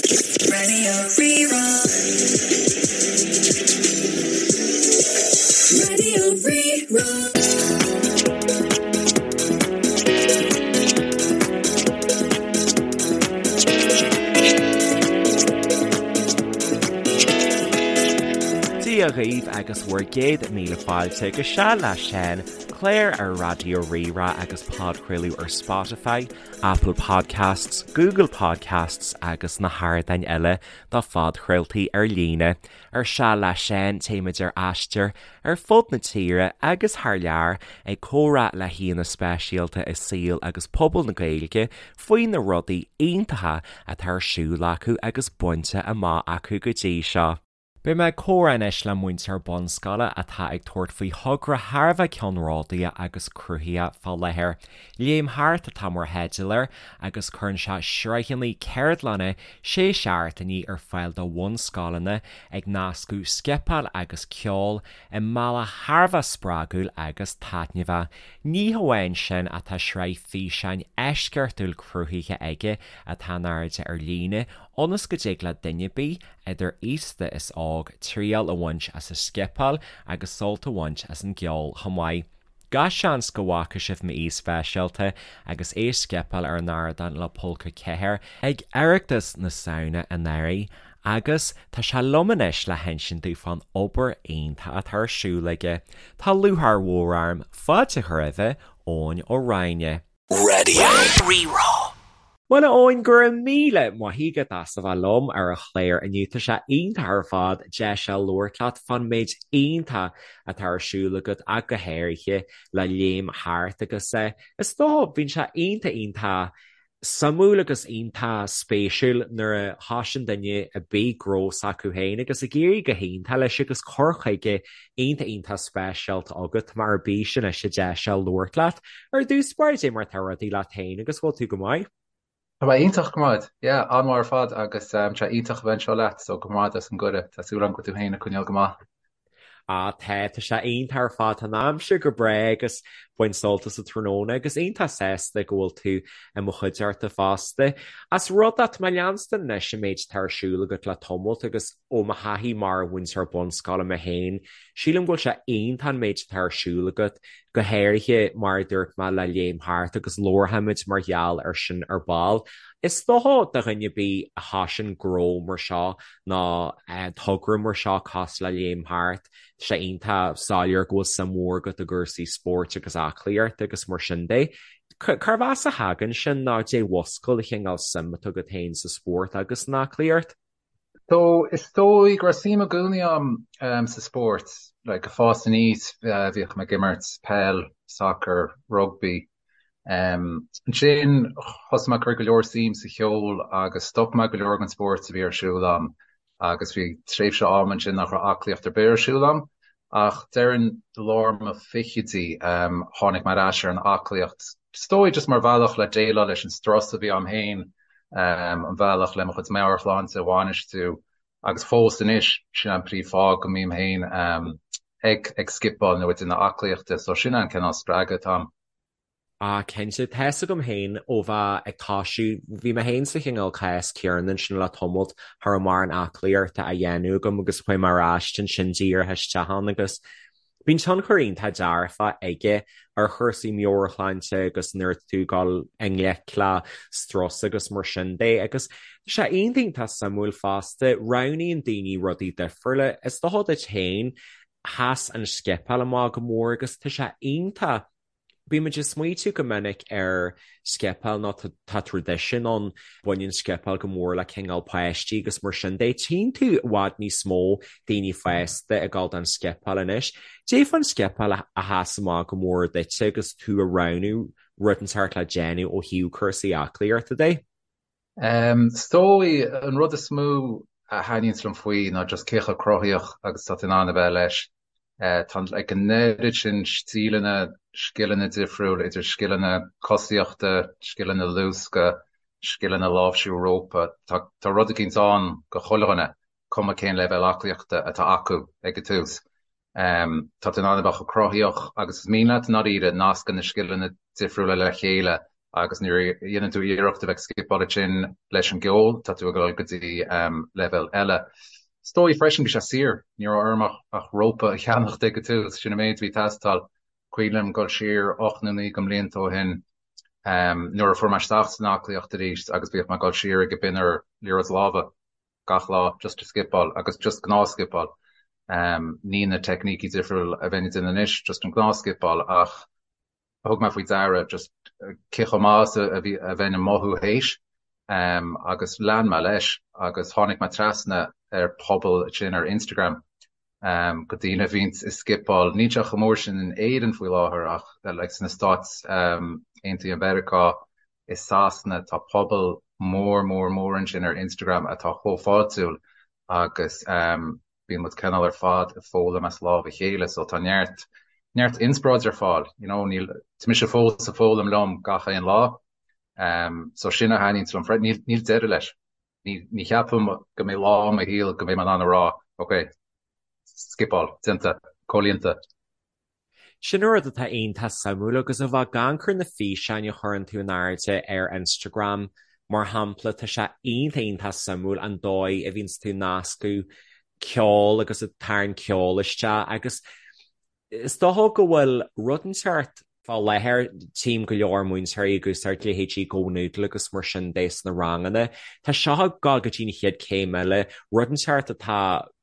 Radio Rí-Rá. Radio Rí-Rá. Dia dhaoibh agus bhur gcéad míle fáilte go Seal le Seán, clár ar Raidió Rí-Rá agus podchraoladh ar Spotify, Apple Podcasts, Google Podcasts agus na hardáin eile do phodchraoltaí ar líne. Ar Seal le Seán, téimid ar aistear ar fud na tíre agus thar lear ag comhrá le haíonna speisialta i saol agus pobal na Gaeilge faoi na rudaí iontacha atá ar siúl acu agus bainte amach acu go dtí seo. Beidh mé ag comhrá anois le múinteoir bunscoile atá ag tabhairt faoi thogra thar a bheith ceannródaíoch agus cruthaitheach fá láthair. Léim Thart atá mar theideal air agus cuireann sé sraitheanna ceardlanna sé seachtainí ar fáil do bhunscoileanna ag nascadh scipeáil agus ceol i mbealach thar a bheith spreagúil agus taitneamhach. Ní hamháin sin ach tá sraith físeáin eisceachtúil cruthaithe aige atá in airde ar líne ionas go dtig le duine ar bith, idir aosta is óg, triail a bhaint as an scipeáil agus sult a bhaint as an gceol chomh maith. Gach seans go bhfaca sibh m'aoi speisialta agus é ag scipeáil ar an ardán le Pólca 4 ag Oireachtas na Samhna anuraidh agus tá sé liom anois le hinsint dúinn fán obair iontach atá ar siúl aige. Tá lúcháir mhór orm fáilte a chur roimhe, Eoin Ó Ráinne. Radio Rí-Rá. Bhuel a Eoin, go raibh míle maith agat as a bheith liom ar an chlár inniu. Tá sé iontach ar fad deis a labhairt leat fán méid iontach atá ar siúl agat ach go háirithe le Léim Thart agus is dócha bíonn sé iontach iontach suimiúil agus iontach spéisiúil nuair a thosaíonn duine ar bith gnó s'acu féin agus ag éirí go hiontach leis agus cur chuige iontach iontach speisialta agat. Tá mé ar bís anois an deis seo labhairt leat. Ar dtús báire, cad é mar atá rudaí leat féin agus bhfuil tú go maith? Tá mé iontach go maith. Yeah, an-mhaith ar fad agus tá sé iontach a bheith anseo leat so go raibh maith agat as an gcuireadh. Tá súil agam go bhfuil tú féin ag coinneáil go maith. Ah tá, tá sé iontach ar fad. Tá an aimsir go breá agus baint sult as an tráthnóna agus iontach sásta go bhfuil tú i mo chuideachta fosta. Ós rud é, tá mé ag leanstan anois an méid atá ar siúl agat le tamalt agus ó mo thaithí mar mhúinteoir bunscoile mé féin, sílim go bhfuil sé iontach an méid atá ar siúl agat, go háirithe mar a dúirt mé le Léim Thart agus labharfaimid mar gheall ar sin ar ball. Is dócha do dhuine ar bith a thosaíonn gnó mar seo nó togra mar seo cosúil le Léim Thart, tá sé iontach soiléir go bhfuil suim mhór agat i gcúrsaí spóirt agus aclaíochta agus mar sin de. Cérbh as a thagann sin nó caidé a mhúscail an chineál suim atá agat féin sa spórt agus san aclaíocht? So, is dóigh go raibh suim i gcónaí agam sa spórt, like ag fás aníos bhíodh mé ag imirt peil, sacar, rugbaí. Ansin thosaigh mé ag cur go leor suim sa cheol agus stop mé go leor den spórt a bhí ar siúl agam agus bhí tréimhse ama ansin nach raibh aclaíocht ar bith ar siúl agam. Ach déarfainn i lár mo fichidí tháinig mé ar ais ar an aclaíocht, is dóigh just mar bhealach le déileáil leis an strus a bhí agam féin an bhealach le mo chuid meabhairshláinte a bhainistiú agus fós anois sin an príomhfháth go mbím féin ag ag scipeáil nó ag déanamh aclaíochta so sin an cineál spreagadh atá a'm. Ah cinnte, tá fhios agam féin ó bheith ag toisiú, bhí mé féin sa chineál cás céanna ansin le tamalt, cha raibh mórán aclaíochta á dhéanamh agam agus chuaigh mé ar ais ansin díreach isteach ann agus Bíonn tionchar iontach dearfach aige ar chúrsaí meabhairshláinte agus nuair atá tú ag dul i ngleic le strus agus mar sin de. Agus tá sé iontach iontach suimiúil fosta, roghnaíonn daoine rudaí difriúla. Is dócha duit féin, sheas an scipeáil amach go mór agus tá sé iontach Bímid ag smaoitiú go minic ar scipeáil nó tá traidisiún ann, baineann scipeáil go mór le cineál páistí agus mar sin de. Tchíonn tú i bhfad níos mó daoine fásta ag dul don scipeáil anois. Caidé fán scipeáil a sheas amach go mór duitse agus tú ag roghnú rud inteacht le déanamh ó thaobh cúrsaí aclaíochta de? Is dóigh, an rud is mó a thaitníonns liom faoi ná just cé chomh cruthaíoch agus atá tú in ann a bheith leis. Tá like an oiread sin stíleanna, scileanna difriúil, idir scileanna cosaíochta, scileanna luasctha, scileanna láimhsiú rópa, tá tá rud eicínt ann go chuile dhuine, cuma cén leibhéal aclaíochta atá acu ag an tús. Tá tú in ann a bheith chomh cruthaíoch agus is mian leat i ndáiríre, nascann na scileanna difriúla le chéile. Agus nuair a dhéanann tú iarracht a bheith ag scipeáil ansin leis an gceol, tá tú ag dul go dtí leibhéal eile. Is dóigh freisin bhí sé saor, ní raibh orm ach rópa a cheannacht ag an tús, sin an méid a bhí ag teastáil. Cuimhin liom dul siar 8 nó 9 de mblianta ó shin nuair a fuair mé isteach san aclaíocht arís agus bhíodh mé ag dul siar ag an binn ar liathróid láimhe gach lá just ag scipeáil agus just gnáth scipeáil. Ní na teicnící difriúil a bheinn ag déanamh anois, just an gnáth scipeáil ach thug mé faoi deara just cé chomh maith is a bhí a bheinn ag mothú théis agus lean mé leis agus tháinig mé trasna ar pobal ansin ar Instagram go daoine a bhíonns ag scipeáil. Níl sé chomh mór sin in Éirinn faoi láthair ach like sna Stáit Aontaithe Mheiriceá i Sasana tá pobal mór mór mór ansin ar Instagram atá chomh fáiltiúil agus bíonn muid cineál ar fad ag foghlaim as lámh a chéile so tá neart neart inspioráid ar fáil you know níl tá mise fós ag foghlaim liom gach aon lá um, so sin a thaitníonn liom freisin níl níl deireadh leis ní ní cheapaim go mbeidh lá i mo shaol go mbeidh mé in ann a rá ok scipeáil déanta comhlíonta. Sin an rud atá iontach suimiúil agus a bheith ag amharc ar na físeáin a chuireann tú in airde ar Instagram, mar shampla, tá sé iontach iontach suimiúil an dóigh a bhíonns tú ag nascadh ceol agus ag tarraingt ceol isteach agus is dócha go bhfuil rud inteacht Fá láthair, tchím go leor múinteoirí ag úsáid leithéidí GoNoodle agus mar sin de sna ranganna. Tá seo ag dul go dtí an chéad chéim eile, rud inteacht atá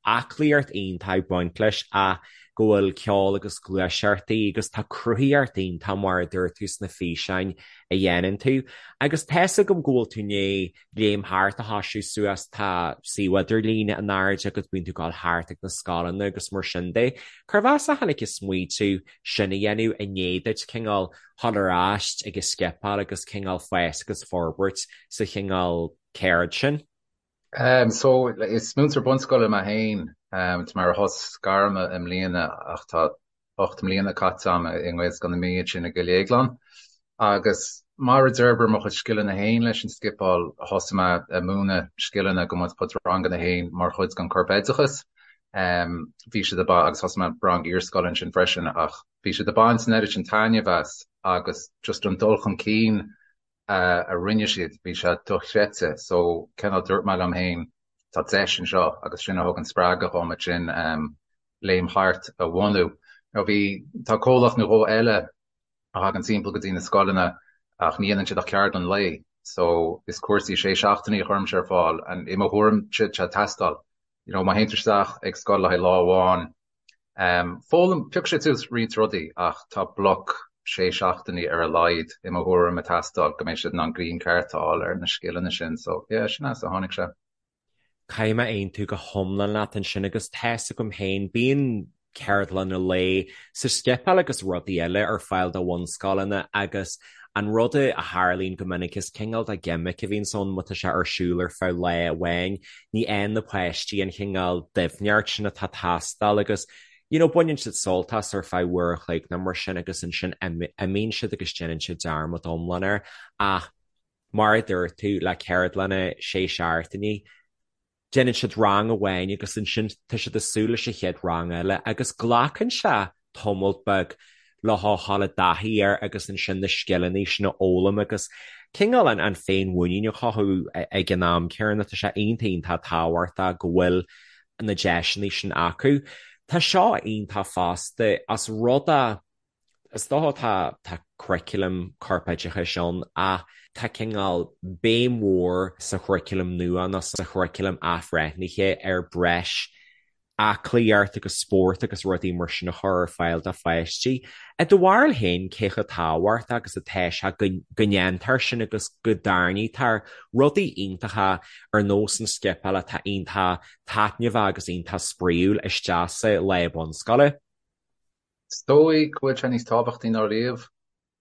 aclaíocht iontach ag baint leis ach go bhfuil ceol agus gluaiseachtaí agus tá cruthaíocht iontach mar a dúirt tú sna físeáin a dhéanann tú. Agus tá's agam go bhfuil tú i ndiaidh Léim Thart a thosú suas, tá suíomh idirlín in airde agat, bíonn tú ag dul thart ag na scoileanna agus mar sin de. Cérbh as a tháinig an smaoitiú sin a dhéanamh i ndiaidh duit cineál dhul ar ais ag an scipeáil agus cineál fás agus forbairt sa chineál ceird sin? So, is múinteoir bunscoile mé féin. Tá mé ar shos gairme i mbliana ach tá 8 mbliana caite agam i nGaelscoil na Mí ansin i gCill Dhéagláin. Agus mar a d'fhorbair mo chuid scileanna féin leis an scipeáil, thosaigh mé ag múineadh scileanna go mo chuid ranganna féin mar chuid den corpoideachas. Bhí siad ag agus thosaigh mé rang iarscoile ansin freisin ach bhí siad ag baint an oiread sin taitneamh as agus just an dul chun cinn a rinne siad, bhí sé dochreidte. So, cineál dúirt mé liom féin, tá deis anseo agus sin a thug an spreagadh dhom ansin Léim Thart a bhunú. Now bhí, tá comhlacht nó dhó eile a thagann timpeall go dtí na scoileanna ach ní dhéanann siad ach ceardlann lae so is cúrsaí sé seachtainí a chuirimse ar fáil and i mo thuairimse tá sé ag teastáil. You know má théann tú isteach ag scoil le haghaidh lá amháin, um, foghlaim, piocfaidh siad suas roinnt rudaí ach tá bloc sé seachtainí ar a laghad i mo thuairim ag teastáil go mbeidh siad in ann greim ceart a fháil ar na scileanna sin so yeah sin as a tháinig sé. Caithfidh mé aontú go hiomlán leat ansin agus tá's agam féin, bíonn ceardlanna lae sa scipeáil agus rudaí eile ar fáil do bhunscoileanna agus an rud a tharlaíonn go minic is cineál de ghimic a bhíonns ann má tá sé ar siúl ar feadh lá amháin, ní fhaigheann na páistí an chineál doimhneacht sin atá ag teastáil agus you know baineann siad sult as ar feadh uair a chloig nó mar sin agus ansin imíonn siad agus déanann siad dearmad iomlán air ach mar a dúirt tú le ceardlanna sé seachtainí déanann siad rang amháin agus ansin tá siad ag súil leis an chéad rang eile agus glacann sé tamall beag le dhul i dtaithí air agus ansin na scileanna sin a fhoghlaim agus cineál an an féinmhuinín a chothú ag an am céanna. Tá sé iontach iontach tábhachtach go bhfuil na deiseanna sin acu. Tá seo iontach fosta as rud a Is dócha tá tá curriculum corpoideachais ann ach tá cineál béim mhór sa churriculum nua nó sa churriculum athbhreithnithe ar breis aclaíocht agus spórt agus rudaí mar sin a chur ar fáil do pháistí. I do bharúil féin, cé chomh tábhachtach agus atá sé go go ndéantar sin agus go dtarraingítear rudaí iontacha ar nós an scipeáil atá iontach taitneamhach agus iontach spraíúil isteach sa lá bunscoile? Is dóigh go bhfuil sé níos tábhachtaí ná riamh.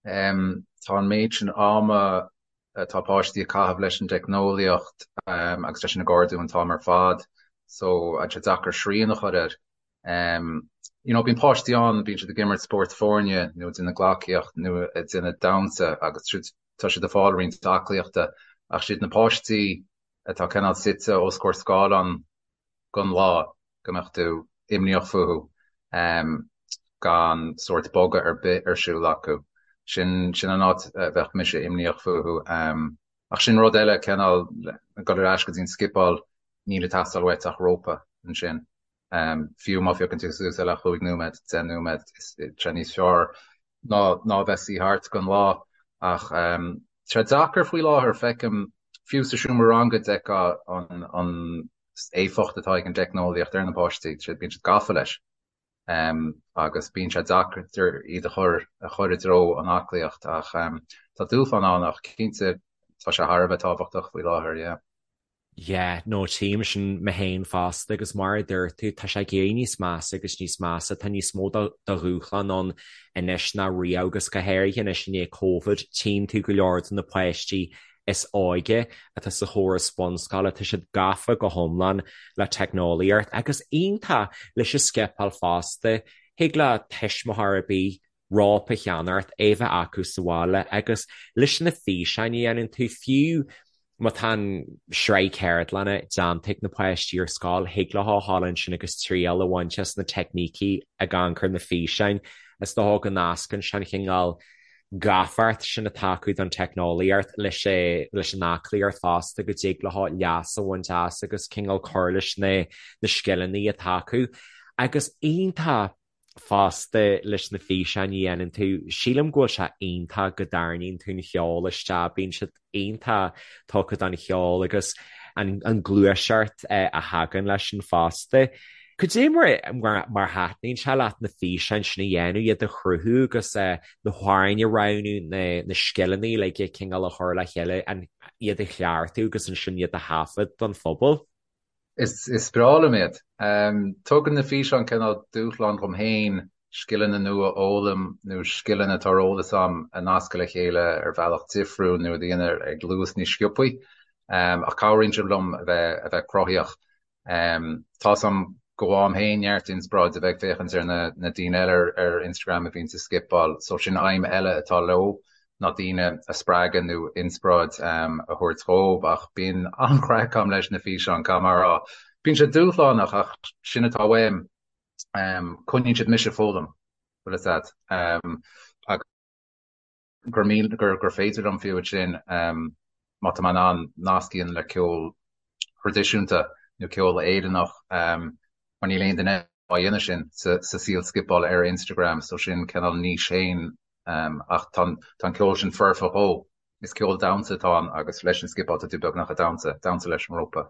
Tá an méid sin ama atá páistí ag caitheamh leis an dteicneolaíocht agus leis an gcardú an t-am ar fad so tá sé deacair srian a chur air. You know, bíonn páistí ann, bíonn siad ag imirt spórt foirne nó ag déanamh gleacaíocht nó ag déanamh damhsa agus tá siad ag fáil roinnt aclaíochta ach siad na páistí atá cineál suite os comhair scáileán don lá go mbeadh tú imníoch fúthu gan sórt bogadh ar bith ar siúl acu. Sin sin an áit a bheadh mise imníoch fúthu. Ach sin rud eile, cineál, dul ar ais go dtí an scipeáil, níl ag teastáil uait ach rópa ansin. Fiú má phiocann tú suas é le chúig nóiméad, 10 nóiméad, tá sé níos fearr ná ná a bheith suí thart don lá. Ach tá sé deacair faoi láthair, feicim, fiú sa seomra ranga d'fheicfeá an an éifeacht atá ag an dteicneolaíocht ar na páistí, bíonn siad gafa leis. Agus bíonn sé deacair iad a chur a chur i dtreo an aclaíocht ach tá dúshlán ann ach cinnte tá sé thar a bheith tábhachtach faoi láthair, yeah. Yeah, no tchím sin mé féin fosta agus mar a dúirt tú tá sé ag éirí níos measa agus níos measa, tá níos mó de dhúshlán ann anois ná riamh agus go háirithe anois i ndiaidh Covid tchíonn tú go leor de na páistí is óige atá sa chóras bunscoile, tá siad gafa go hiomlán le teicneolaíocht agus iontach leis an scipeáil fosta. Thig le tuismitheoir ar bith rópa a cheannacht, é bheith acu sa bhaile agus leis na físeáin a dhéanann tú, fiú má tá an sraith ceardlanna déanta ag na páistí ar scoil, thig leo a ghabháil ansin agus triail a bhaint as na teicnící ag amharc ar na físeáin. Is dócha go nascann sé an chineál gafacht sin atá acu don teicneolaíocht leis leis an aclaíocht fosta go dtig leo leas a bhaint as agus cineál cur leis na na scileanna atá acu. Agus iontach fosta leis na físeáin a dhéanann tú, sílim go bhfuil sé iontach go dtarraingíonn tú an cheol isteach, bíonn siad iontach tugtha don cheol agus an ghluaiseacht a thagann leis sin fosta. Cad é mar mar thaitníonn sé leat na físeáin sin a dhéanamh, iad a chruthú agus na hamhráin a roghnú, na scileanna uilig cineál a chur le chéile, iad a chleachtadh agus ansin iad a thaifead don phobal? Is breá liom iad. Tugann na físeáin cineál dúshlán dhom féin scileanna nua a fhoghlaim nó scileanna atá ar eolas a'm a nascadh le chéile ar bhealach difriúil nó a dhéanamh ag luas níos sciobthaí. Ach cabhraíonn siad liom a bheith a bheith cruthaíoch. Tá's a'm go bhfaighim féin neart inspioráid a bheith ag féachaint ar na na daoine eile ar ar Instagram a bhíonns ag scipeáil so sin aidhm eile atá leo ná daoine a spreagadh nó inspioráid a thabhairt dhóibh ach bíonn an-chraic a'm leis na físeáin, caithfidh mé a rá. Bíonn sé dúshlánach ach sin atá uaim. Coinníonn siad mise ag foghlaim, bhfuil fhios a'd. Agus gur míl, gur, gur féidir liom fiú ansin, má tá mé in ann nasc a dhéanamh le ceol thraidisiúnta nó ceol Éireannach, mar níl aon duine á dhéanamh sin sa saol scipeála ar Instagram so sin cineál niche féin ach tá an ceol sin foirfe dhó. Is ceol damhsa atá ann agus leis an scipeáil tá tú beagnach ag damhsa, damhsa leis an rópa.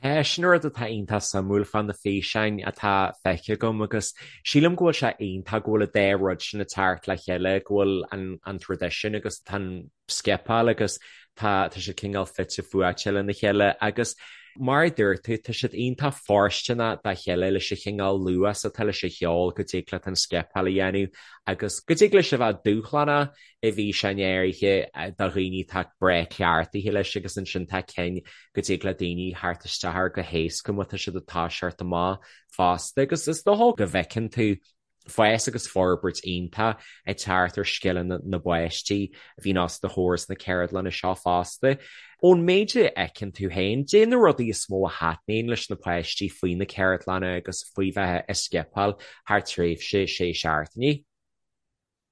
Tá, sin rud atá iontach suimiúil fá na físeáin atá feicthe agam agus sílim go bhfuil sé iontach go bhfuil an dá rud sin ag teacht le chéile, go bhfuil an traidisiún agus tá an scipeáil agus tá tá siad cineál fite fuaite lena chéile agus mar a dúirt tú, tá siad iontach fóirsteanach dá chéile leis an chineál luas atá leis an cheol go dtig leat an scipeáil a dhéanamh agus go dtig leis a bheith dúshlánach i bhfíseáin áirithe do dhaoine atá breá cleachtaithe leis agus ansin tá cinn go dtig le daoine theacht isteach air go héasca má tá siad ag toiseacht amach fosta agus is dócha go bhfeiceann tú fás agus forbairt iontach ag teacht ar scileanna na bpáistí a bhíonn os do chomhair sna ceardlanna seo fosta. Ón méid a fheiceann tú féin, cad é na rudaí is mó a thaitníonn leis na páistí faoi na ceardlanna agus faoi bheith ag scipeáil thar tréimhse sé seachtainí?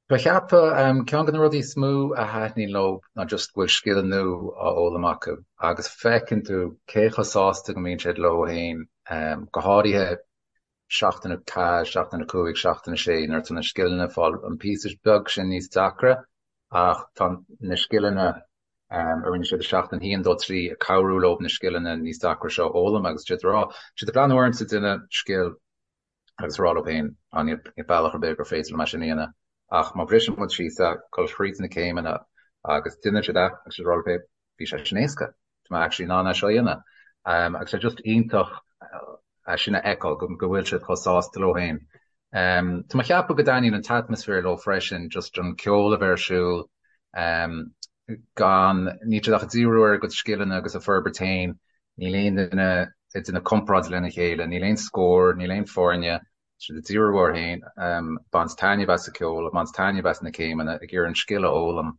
Ba cheapadh, ceann de na rudaí is mó a thaitníonn leo ná just go bhfuil scil nua á fhoghlaim acu agus feiceann tú cé chomh sásta go mbíonn siad leo féin, go háirithe seachtain 4, seachtain 5, seachtain 6, nuair atá na scileanna ag fáil an píosa beag sin níos deacra ach tá na scileanna a rinne siad i seachtain 1, 2, 3 ag cabhrú leo na scileanna níos deacra seo a fhoghlaim agus siad ag rá, siad ag breathnú ormsa ag déanamh scil agus ag rá leo féin, á níl bealach ar bith gur féidir liom é sin a dhéanamh ach má bhriseann muid síos é, dul thríd na céimeanna agus déanann siad é agus siad ag rá leo féin, bhí sé sin éasca, tá mé actually in ann é seo a dhéanamh. Agus tá just iontach é sin a fheiceáil, go bhfuil siad chomh sásta leo féin. Tá mé ag ceapadh go dtaitníonn an t-atmaisféar leo freisin, just an ceol a bheith ar siúl, gan, níl siad ach ag díriú ar a gcuid scileanna agus a forbairt féin, níl aon duine ag déanamh comparáid lena chéile, níl aon scór, níl aon foirne, tá siad ag díriú orthu féin, ag baint taitneamh as an ceol, ag baint taitneamh as na céimeanna, ag iarraidh an scil a fhoghlaim.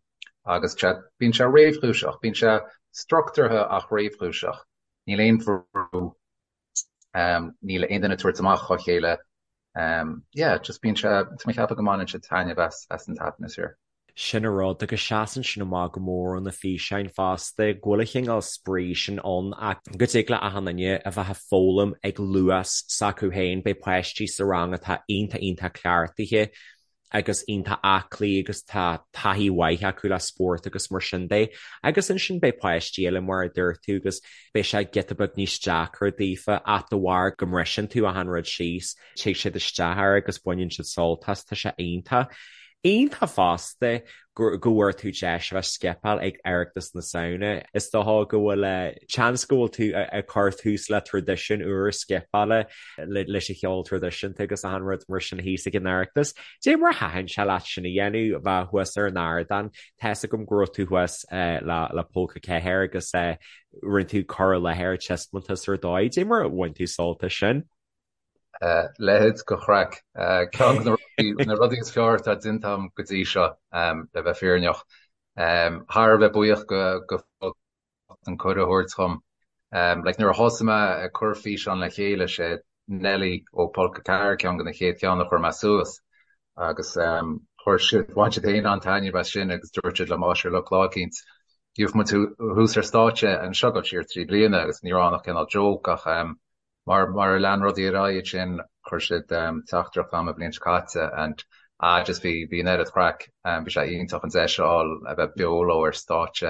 Agus bíonn sé réchúiseach, bíonn sé struchtúrtha ach réchúiseach. Níl aon bhrú, níl aon duine ag tabhairt amach dhá chéile. Yeah, just bíonn sé, tá mé ag ceapadh go mbaineann siad taitneamh as as an t-atmaisféar. Sin an rud, agus seasann sin amach go mór ó na físeáin fosta, go bhfuil an chineál spraoi sin ann ach go dtig le achan duine a bheith ag foghlaim ag luas s'acu féin, beidh páistí sa rang atá iontach iontach cleachtaithe agus iontach aclaí agus tá taithí mhaith acu le spórt agus mar sin de. Agus ansin beidh páistí eile mar a dúirt tú agus beidh sé giota beag níos deacra daofa ach de bharr go mbriseann tú achan rud síos, tig siad isteach air agus baineann siad sult as, tá sé iontach. Iontach fosta go bhfuair tú deis a bheith scipeáil ag Oireachtas na Samhna. Is dócha go bhfuil seans go bhfuil tú ag cur tús le traidisiún úr scipeála leis an cheol traidisiúnta agus achan rud mar sin thíos ag an Oireachtas. Dé mar a thaitin sé leat sin a dhéanamh, bheith thuas ar an ardán. Tá's agam go raibh tú thuas le Pólca 4 agus rinne tú cur i láthair taispeántas ar dóigh. Dé mar a bhain tú sult as sin? Leithéid de chraic. Ceann de na rudaí is fearr atá déanta agam go dtí seo, le bheith fírinneach. Thar a bheith buíoch go an cuireadh a thabhairt dhom. Like nuair a thosaigh mé ag cur físeán le chéile, sé Nelly ó Pólca 4 ceann de na chéad cheann a chuir mé suas agus chuir siad, bhain siad féin an-taitneamh as sin agus dúirt siad liom, á sure look lá eicínt gheobhaidh muid thuas ar stáitse anseo ag dul siar 3 bliana agus ní raibh ann ach cineál joke ach Mar mar a lean rudaí ar aghaidh ansin chuir siad teachtaireacht chugam an bhliain seo caite and ah just bhí bhí an oiread craic bhí sé iontach an deis a fháil a bheith beo leo ar stáitse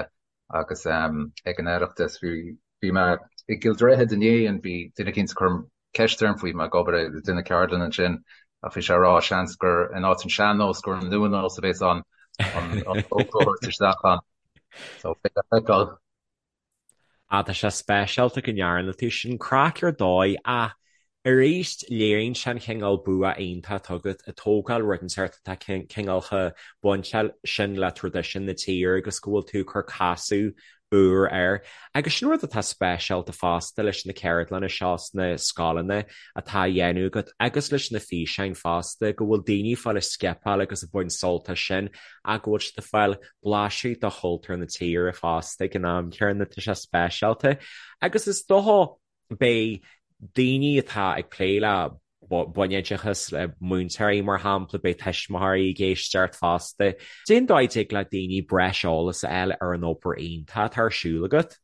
agus ag an Oireachtas bhí bhí mé i gCill Droichid inné and bhí duine eicínt ag cur ceist orm faoi mé ag obair ag déanamh ceardlann ansin ach bhí sé ag rá seans gur in áit an sean-nós gur an nua-nós a bhéas ann an an a thabhairt isteach ann so beidh le feiceáil. Ah, tá sé speisialta go ndearna tú sin. Craic ar dóigh ach arís léiríonn sé an chineál bua iontach atá agat ag tógáil rud inteacht atá cineál chomh bainteach sin le traidisiún na tíre agus go bhfuil tú ag cur casadh úr air. Agus sin rud atá speisialta fosta leis na ceardlanna seo sna scoileanna atá á dhéanamh agat agus leis na físeáin fosta, go bhfuil daoine ag fáil ag scipeáil agus ag baint sult as sin ach go bhfuil siad ag fáil blaiseadh de chultúr na tíre fosta ag an am céanna, tá sé speisialta. Agus is dócha beidh daoine atá ag plé le bunoideachas, le múinteoirí mar shampla, beidh tuismitheoirí ag éisteacht fosta. Cén dóigh a dtig le daoine breis eolas a fháil ar an obair iontach atá ar siúl agat?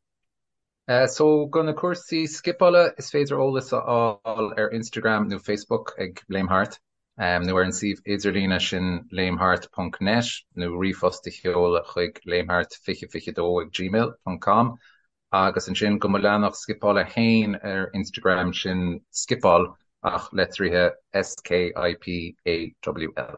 So do na cúrsaí scipeála is féidir eolas a fháil ar Instagram nó Facebook ag Léim Thart, nó ar an suíomh idirlíne sin léimthart ponc net nó ríomhphost a sheoladh chuig léimthart2022 ag gmail ponc com agus ansin do mo leathanach scipeála féin ar Instagram sin skipawl ach litrithe S-K-I-P-A-W-L.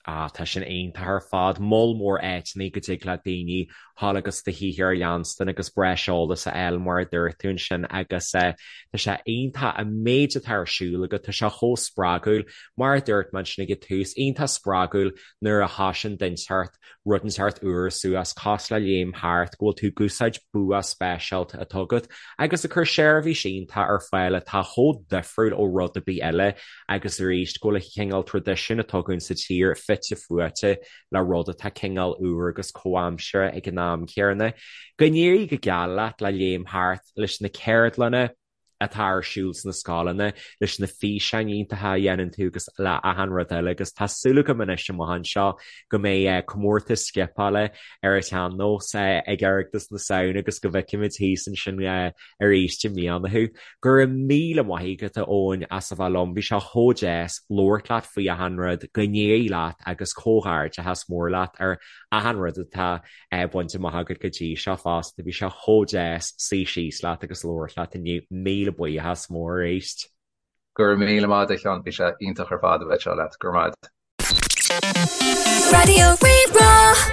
Ah, tá sin iontach ar fad. Moll mór áiteanna go dtig le daoine dhul agus do shaothar a leanstan agus breis eolas a fháil mar a dúirt tú ansin agus tá sé iontach an méid atá ar siúl agat, tá sé chomh spreagúil. Mar a dúirt mé ansin ag an tús, iontach spreagúil nuair a thosaíonn duine inteacht rud inteacht úr suas, cosúil le Léim Thart, go bhfuil tú ag úsáid bua speisialta atá agat agus ag cur seirbhís iontach ar fáil atá chomh difriúil ó rud ar bith eile agus arís go bhfuil an cineál traidisiún atá againn sa tír fite fuaite le rud atá cineál úr agus comhaimseartha ag an am céanna. Go n-éirí go geal leat le Léim Thart, leis na ceardlanna, atá ar siúl sna scoileanna, leis na físeáin iontacha a dhéanann tú agus le achan rud eile agus tá súil agam anois amach anseo go mbeidh comórtas scipeála ar an tsean-nós ag Oireachtas na Samhna agus go bhfeicfimid thíos ansin arís i mbliana thú. Go raibh míle maith agat a Eoin as a bheith liom, bhí sé chomh deas labhairt leat faoi achan rud, go n-éirí leat agus comhghairdeachas mór leat ar achan rud atá bainte amach agat go dtí seo fosta. Bhí sé chomh deas suí síos leat agus labhairt leat inniu. Míle buíochas mór arís. Go raibh míle maith agat a Sheáin, bhí sé iontach ar fad a bheith anseo leat. Go raibh maith agat. Raidió Rí-Rá.